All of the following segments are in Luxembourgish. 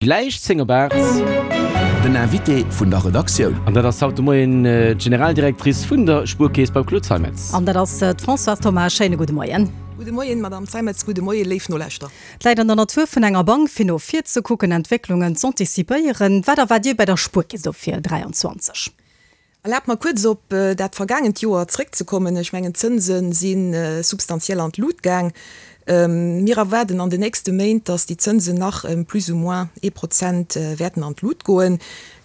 Gläich 10 op 8. Den Invité vun der Redaktioun. An dat ass haut de Moien d'Generaldirectrice vun der Spuerkeess beim Claude Zeimetz. An dat ass d'Françoise Thoma. Schéine gudde Moien. Gudde Moien, Madame Zeimetz. Gudde Moien, léif Nolauschterer. Et läit an der Natur vun enger Bank, fir no vir ze kucken, Entwécklungen z'anticipéieren. Wat erwaart Dir bei der Spuerkeess do fir 23? Erlaabt mer kuerz op dat vergaangent Joer zréckzekommen. Ech mengen, d'Zënse si substantiell an d'Lut gaang. Mir erwaarden an den nächste Méint, datt déi Zënsen nach ëm plus ou moins ee Prozent wäerten an d'Lut goen.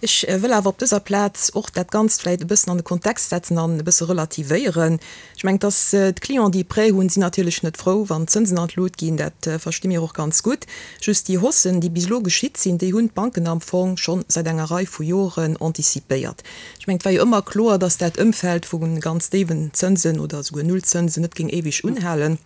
Ech wëll awer op dëser Plaz och dat Ganzt vläicht e bëssen an de Kontext setzen an e bësse relativéieren. Ech mengen, dass d'Clienten, déi e Prêt hunn, sinn natierlech net frou, wann d'Zënsen an d'Lut ginn. Dat versti mir och ganz gutt. Just déi Haussen, déi bis elo geschitt sinn, déi hunn d'Banken am Fong scho säit enger Rei vu Joren anticipéiert. Ech mengen, et war jo ëmmer kloer, dass dat Ëmfeld vu ganz déiwen Zënsen oder esouguer Nullzënsen net géing éiweg unhalen.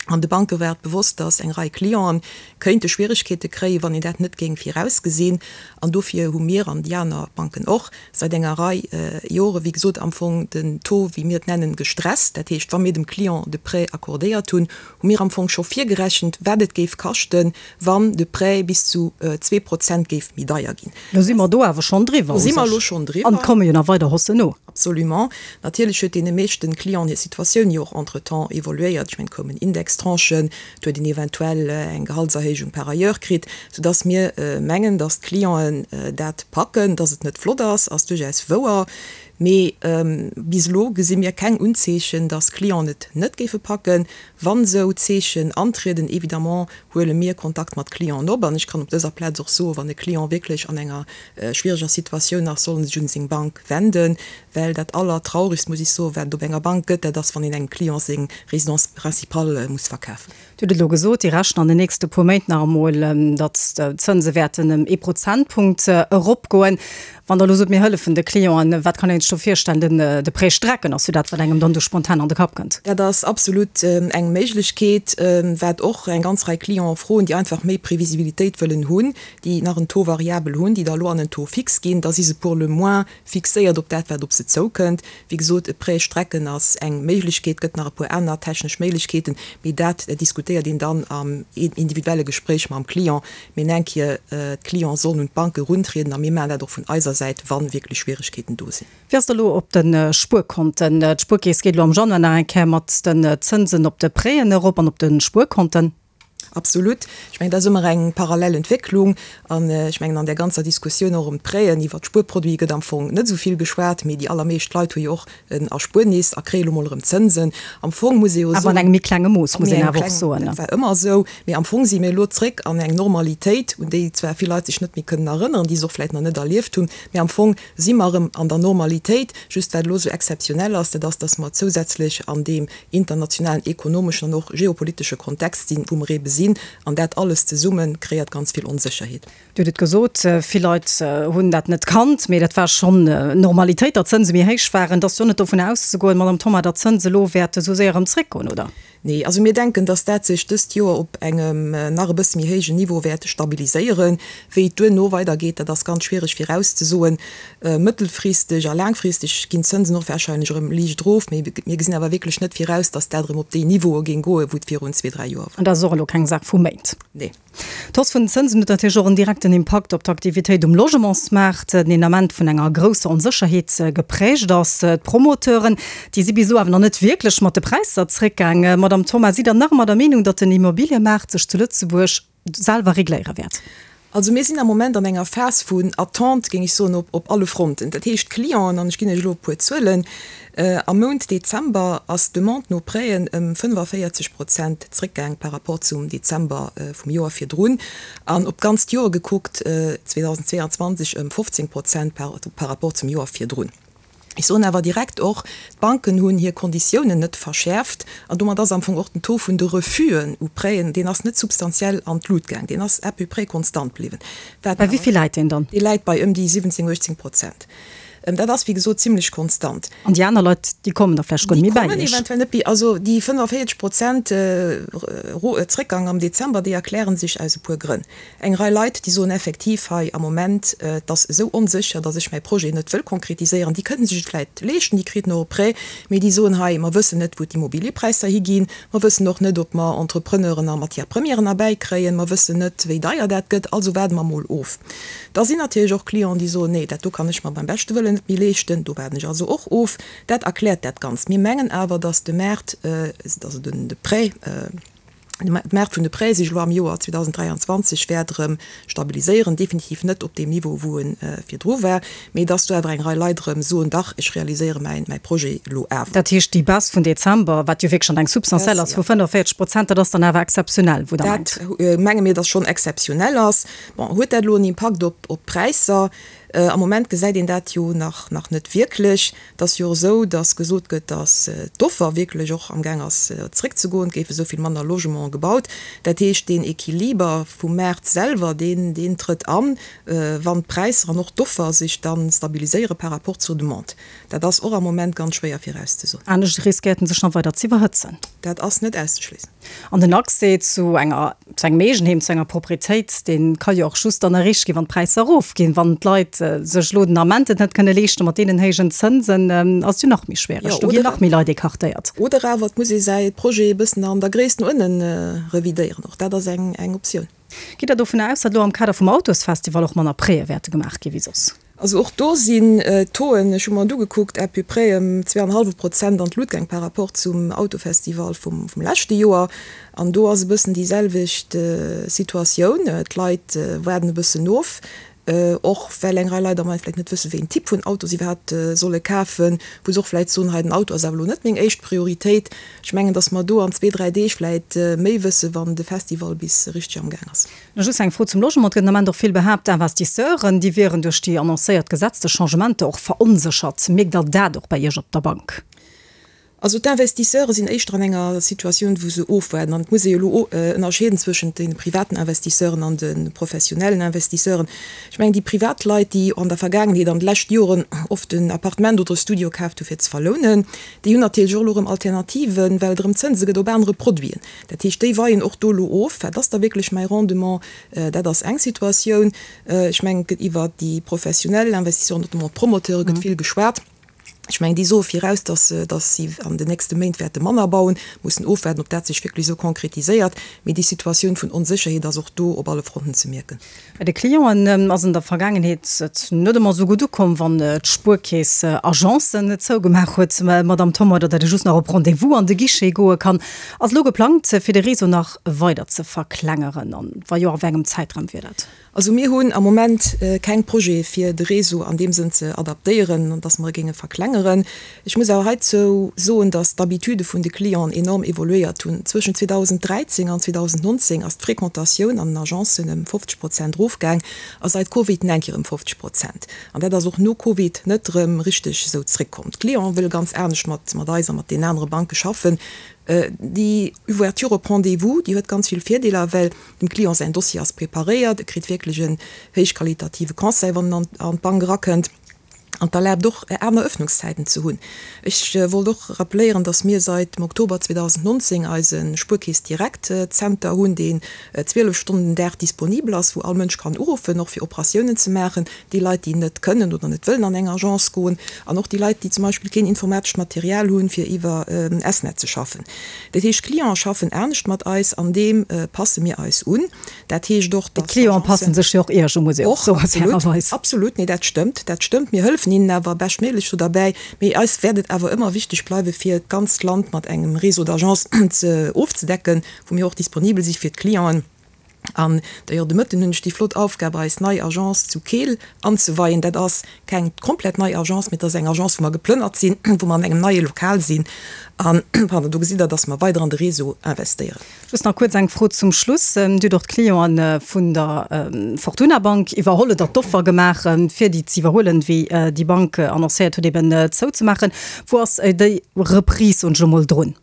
An de Banke war et bewosst, dass eng Rei Clienten kéinte Schwieregkeete kréien, wann een dat net géing virausgesinn. An dofir hu mir, an déi aner Banken och, säit enger Rei Jore wéi gesot am Fong den Taux, wéi mir et nennen, gestresst. Dat heescht, wa mir dem Client de Prêt accordéiert hunn, hu mir am Fong scho virgerechent, wat et géif kaschten, wann de Prêt bis zu 2% géif méi deier ginn. Lo si mer do awer schonn driwwer u sech. An et komme jo nach weider Haussen no. Absolument. Natierlech huet deene meeschten Clienten hir Situatioun jo och entretemps evoluéiert. Ech mengen, et koumen Indextranchen, et huet een eventuell eng Gehaltserhéijung par ailleurs kritt, soudass mir mengen, dass d'Clienten dat packen. Dass et net flott ass, ass duerchaus wouer. Mee bis elo gesi mir keng Unzeechen, dass d'Clienten et net géife packen. Wann esou Zeechen antrieden, évidemment huele mir Kontakt mat Clienten op. An ech kann op dëser Plaz och soen, wann e Client wierklech an enger schwiereger Situatioun ass, soll en sech un seng Bank wenden, well dat Allertraurigst, muss ech soen, wat et op enger Bank gëtt, dat ass, wann een engem Client seng Résidence principale muss verkafen. Dir hutt et elo gesot, Dir rechent an den nächste puer Méint nach emol, datt d'Zënse wäerten ëm ee Prozentpunkt eropgoen. Wann Der elo sot, mir hëllefen de Clienten, wat kann een sech do virstellen? Den, de Prêt strecken ass jo dat, wat engem dann do spontan an de Kapp kënnt. Dat ass absolut eng Méiglechkeet, wat och eng ganz Rei Clienten froen, déi einfach méi Previsibilitéit wëllen hunn, déi nach en Taux variabel hunn, déi da elo an en Taux fixe ginn. Da si se pour le moins fixéiert op dat, wat op se zoukënnt. Wéi gesot, e Prêt strecken ass eng Méiglechkeet, gëtt nach e puer aner technesch Méiglechkeeten, mee dat diskutéiert een dann am individuelle Gespréich mam Client. Mee eng Kéier, d'Clienten sollen un d'Banke eruntrieden a mir maachen dat och vun eiser Säit, wa wierklech Schwieregkeeten do sinn. Wéi ass et elo op de Spuerkonten? D'Spuerkeess geet elo am Januar nach eng Kéier mat den Zënsen op de Prêten erop an op de Spuerkonten. Absolut. Ech mengen, dat ass ëmmer eng parallel Entwécklung. An ech mengen, an där ganzer Diskussioun och ëm d'Prêten iwwert d'Spuerproduite gëtt am Fong net esou vill geschwat, mee déi allermeescht Leit hu jo och en Erspuernis a kréie lo mol erëm Zënsen. Am Fong muss ee jo soen. Awer an engem méi klenge Mooss, muss een awer och soen. Dat war ëmmer esou. Mee am Fong si mir elo zréck an eng Normalitéit, un déi zwar vill Leit sech net méi kënnen erënneren, déi se och vläicht nach net erlieft hunn, mee am Fong si mer erëm an der Normalitéit. Just wat elo esou exzeptionell ass, dat ass, dass mer zousätzlech an deem internationalen ekonomeschen an och geopolitesche Kontext sinn, wou mer eebe sinn. An dat alles zesumme kreéiert ganz vill Onsécherheet. Dir hutt et gesot, vill Leit hunn dat net kannt, mee dat war schonn Normalitéit, datt d'Zënse méi héich waren. Et ass jo net dovun auszegoen, Madamm Thoma, datt d'Zënse elo wäerte sou séier erëm zréckgoen, oder? Nee, also mir denken, datt dat sech dëst Joer op engem nach e bësse méi héijen Niveau wäert stabiliséieren. Wéi et duerno weidergeet, dat ass ganz schwiereg virauszesoen. Mëttelfristeg a laangfristeg ginn d'Zënsen och warscheinlech erëm liicht erof, mee mir gesinn awer wierklech net viraus, datt dat erëm op déi Niveaue géing goen, wou et virun zwee, dräi Joer war. An dat ass och elo keng Saach vu Méint. Nee. D'Hausse vun den Zënsen huet natierlech och en direkten Impakt op d'Aktivitéit um Logementsmaart, deen Ament vun enger grousser Onsécherheet geprägt ass. D'Promoteuren, déi si bis elo awer nach net wierklech mat de Präisser zréckgaang. Madamm Thoma, sidd Der nach ëmmer der Meenung, datt den Immobiliëmaart sech zu Lëtzebuerg selwer regléiere wäert? Also mir sinn am Moment an enger Phas vun Attente, géing ech soen, op alle Fronten. Dat heescht, d'Clienten, an ech ginn Iech elo e puer Zuelen, Am Mount Dezember ass d'Demande no Prêten ëm 45 Prozent zréckgaang par rapport zum Dezember vum Joer virdrun an op d'ganzt Joer gekuckt 2022 ëm 15 Prozent par rapport zum Joer virdrun. Ech soen awer direkt och, d'Banken hunn hir Konditiounen net verschäerft an domat ass am Fong och den Taux vun de Refusen u Prêten, deen ass net substantiell an d'Lut gaang, deen ass à peu près konstant bliwwen. Bei wéi vill läit deen dann? Dee läit bei ëm déi 17, 18 Prozent. Dat ass, wéi gesot, zimlech konstant. An déi aner Leit, déi kommen da vläicht guer net méi bäi Déi kommen Iech. eventuell net méi. Also déi 45 Prozent Zréckgang am Dezember, déi erkläre sech aus e puer Grënn. Eng Rei Leit, déi soen effektiv hei am Moment, et ass esou onsécher, datt ech mäi Projet net wëll konkretiséieren. Déi kënnen sech et vläicht leeschten, déi kriten och e Prêt, mee déi soen hei, mer wëssen net, wou d'Immobiliëpräisser higinn, mer wëssen och net, ob mer Entrepreneuren a Matière-premièren erbäikréien, mer wëssen net, wéi deier dat gëtt, also waarde mer mol of. Da sinn natierlech och Clienten, déi soen, nee, dat do kann ech mer beim beschte Wëllen net méi leeschten, do waarden ech also och of. Dat erkläert dat Ganzt. Mir mengen awer, datt de Maart, also de Prêt, de Maart vun de Prêtë sech elo am Joer 2023 wäert erëm stabiliséieren, definitiv net op deem Niveau, wou e virdru war, mee datt do awer eng Rei Leit erëm soen, dach, ech realiséiere mäin, mäi Projet elo awer. Dat heescht, déi Baisse vun Dezember, wat jo wierklech schonn eng substantiell ass, vu 45 Prozent, dat ass dann awer exzeptionell, wou Der mengt? Dat menge mir, datt schonn exzeptionell ass. Bon, huet dat elo en Impakt op d'Präisser? Am Moment gesäit een dat jo nach nach net wierklech. Et ass jo och esou, datt gesot gëtt, datt d'Offer wierklech och amgaang ass zréckzegoen. Et géife esou vill manner Logementen gebaut. Dat heescht, deen Equiliber vum Maart selwer, deen deen trëtt an, wann d'Präisser an och d'Offer sech da stabiliséiere par rapport zur Demande. Dat ass och am Moment ganz schwéier virauszesoen. Anescht riskéiert en sech nach weider z'iwwerhëtzen. Dat ass net auszeschléissen. An den Accès zu enger, zu engem Eegenheem, zu enger Proprietéit, dee ka jo och just dann erreecht ginn, wann d'Präisser erofginn. Wann d'Leit sech elo den Ament et net kënne leeschten, mat deenen héijen Zënsen, ass et jo nach méi schwiereg. Do ginn nach méi Leit écartéiert. Oder awer et muss ee säi Projet e bëssen an der Gréisst no ënne revidéieren. Och dat ass eng Optioun. Gitt Der dovunner aus, datt elo am Kader vum Autosfestival och manner Prêtë wäerte gemaach gi wéi soss? Also och do sinn d'Tauxen, ech hu mer et ugekuckt, à peu près ëm zweeanenhallwe Prozent an d'Lut gaang par rapport zum Autofestival vum leschte Joer. An do ass e bëssen déi selwecht Situatioun, d'Leit waarden e bëssen of, och well eng Rei Leit am Moment vläicht net wëssen, wéi een Typ vun Auto se iwwerhaapt solle kafen, wou se och vläicht soen, hei den Auto ass awer elo net meng éischt Prioritéit. Ech mengen, datt mer do an zwee, dräi Deeg vläicht méi wëssen, wann de Festival bis richteg am Gaang ass. Nach just eng Fro zum Logement. Et gëtt den Ament och vill behaapt, d'Investisseuren, déi wieren duerch déi annoncéiert gesetzlech Changementer och veronséchert. Mierkt Der dat och bei Iech op der Bank? Also d'Investisseure sinn éischter an enger Situatioun, wou se ofwaarden. An et muss ee jo elo ënnerscheeden zwëschent de privaten Investisseuren an de professionellen Investisseuren. Ech mengen, déi privat Leit, déi an der Vergaangenheet, an de leschte Joren oft en Appartement oder e Studio kaaft hu fir ze verlounen, déi hunn natierlech och elo erëm Alternativen, well et erëm Zënse gëtt op anere Produiten. Dat heescht, déi weien och do elo of, wat ass da wierklech mäi Rendement. Dat ass eng Situatioun. Ech mengen, et gëtt iwwert déi professionell Investisseuren, notamment d'Promoteure gëtt vill geschwat. Ech mengen, déi soe viraus, datt se, datt si an den nächste Méint wäerte manner bauen. Mussen ofwaarden, ob dat sech wierklech esou konkretiséiert. Mee déi Situatioun vun Onsécherheet ass och do op alle Fronten ze mierken. Bei de Clienten ass an der Vergaangenheet et net ëmmer esou gutt ukomm, wann d'Spuerkeess Agencen zougemaach huet, Madamm Thoma, oder datt ee just nach op Rendez-vous an de Guichet goe kann. Ass elo geplangt, fir de Réseau nach weider ze verklengeren? An wa jo, a wéi engem Zäitraum wier dat? Also mir hunn am Moment keng Projete fir de Réseau an deem Sënn ze adaptéieren, an dass mer e géinge verklengeren. Ech muss awer heizou soen, dass d'Habitude vun de Clienten enorm evoluéiert hunn. Zwëschen 2013 an 2019 ass d'Fréquentatioun an den Agencen ëm 50 Prozent erofgaang a seit Covid nach eng Kéier ëm 50 Prozent. An dat ass och no Covid net erëm richteg esou zréckkomm. D'Clienten wëlle ganz anescht mat mat eis a mat deenen anere Banke schaffen. Déi Ouverture op Rendez-vous, déi huet ganz vill Virdeeler, well dem Client säin Dossier ass preparéiert, e kritt wierklech en héichqualitative Conseil, wann en an d'Bank erakënnt. An et erlaabt och, aner Öffnungszäiten ze hunn. Ech wollt och rappeléieren, dass mir seit dem Oktober 2019 eise Spuerkeess Direct Zenter hunn, deen 12 Stonnen den Dag disponibel ass, wou all Mënsch kann uruffen, och fir Operatiounen ze maachen, déi Leit, déi net kënnen oder net wëllen an eng Agence goen, an och déi Leit, déi zum Beispill keen informatescht Material hunn, fir iwwer S-Net ze schaffen. Dat heescht, d'Clienten schaffen anescht mat eis, an deem passe mir eis un. Dat heescht och, datt D'Clienten passen sech jo och Iech u, muss ee och soen, fairerweis. Absolut, nee, dat stëmmt, dat stëmmt. Mir hëllefen hinnen awer beschtméiglech do derbäi. Mee eis wäert et awer ëmmer wichteg bleiwen, fir d'ganzt Land mat engem Réseau d'agences ze ofzedecken, wou mir och disponibel si fir d'Clienten. An d'ailleurs, de Mëtten hunn ech déi flott Aufgab, eis nei Agence zu Keel anzeweien. Dat ass keng komplett nei Agence, mee et ass eng Agence, wou mer geplënnert sinn, wou mer an engem neie Lokal sinn. An, pardon, do gesitt Der, datt mer weider an de Réseau investéieren. Just nach kuerz eng Fro zum Schluss. Dir hutt och d'Clienten vun der Fortuna Bank iwwerholl oder d'Offer gemaach, fir déi ze iwwerhuelen, wéi déi Bank annoncéiert huet, eben zouzemaachen. Wou ass déi Reprise, soen ech elo mol, drun?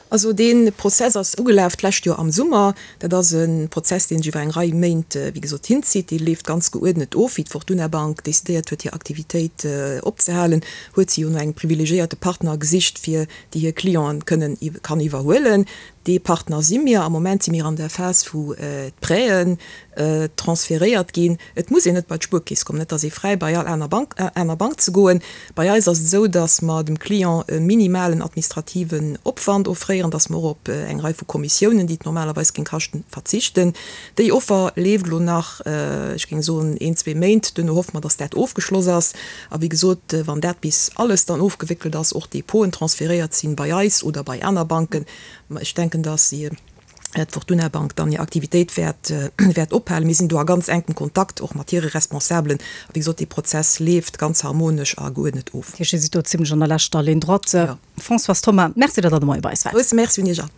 Also dee Prozess ass ugelaf d'lescht Joer am Summer. Dat ass e Prozess, dee sech iwwer eng Rei Méint, wéi gesot, hinzitt. Dee leeft ganz geuerdnet of. Wéi d'Fortuna Bank decidéiert huet, hir Aktivitéit opzehalen, huet si jo no engem privilegiéierte Partner gesicht, fir déi hir Clienten kënnen, kann iwwerhuelen. Dee Partner si mir. Am Moment si mir an der Phas, wou d'Prêten transferéiert ginn. Et muss een net bei d'Spuerkeess kommen, et ass ee fräi bei all aner Bank, aner Bank ze goen. Bei eis ass et esou, datt mer dem Client e minimalen administrativen Opwand offréieren, datt mer och op eng Rei vu Kommissiounen, déi et normalerweis géing kaschten, verzichten. Déi Offer leeft elo nach, ech géing soen, een, zwee Méint. Duerno hoffe mer, datt dat ofgeschloss ass. A wéi gesot, wann dat bis alles dann ofgewéckelt ass, och d'Depoten transferéiert sinn bei eis oder bei aner Banken, ech denken, datt d'Fortuna Bank dann hir Aktivitéit wäert wäert ophalen. Mir sinn do a ganz enkem Kontakt och mat hire Responsabelen. A wéi gesot, dee Prozess leeft ganz harmonesch a geuerdnet of. Dat heescht, Dir sidd do zimlech an der leschter Ligne droite. Françoise Thoma, Merci, datt Der de Moie bei eis waart. Grousse Merci un Iech all.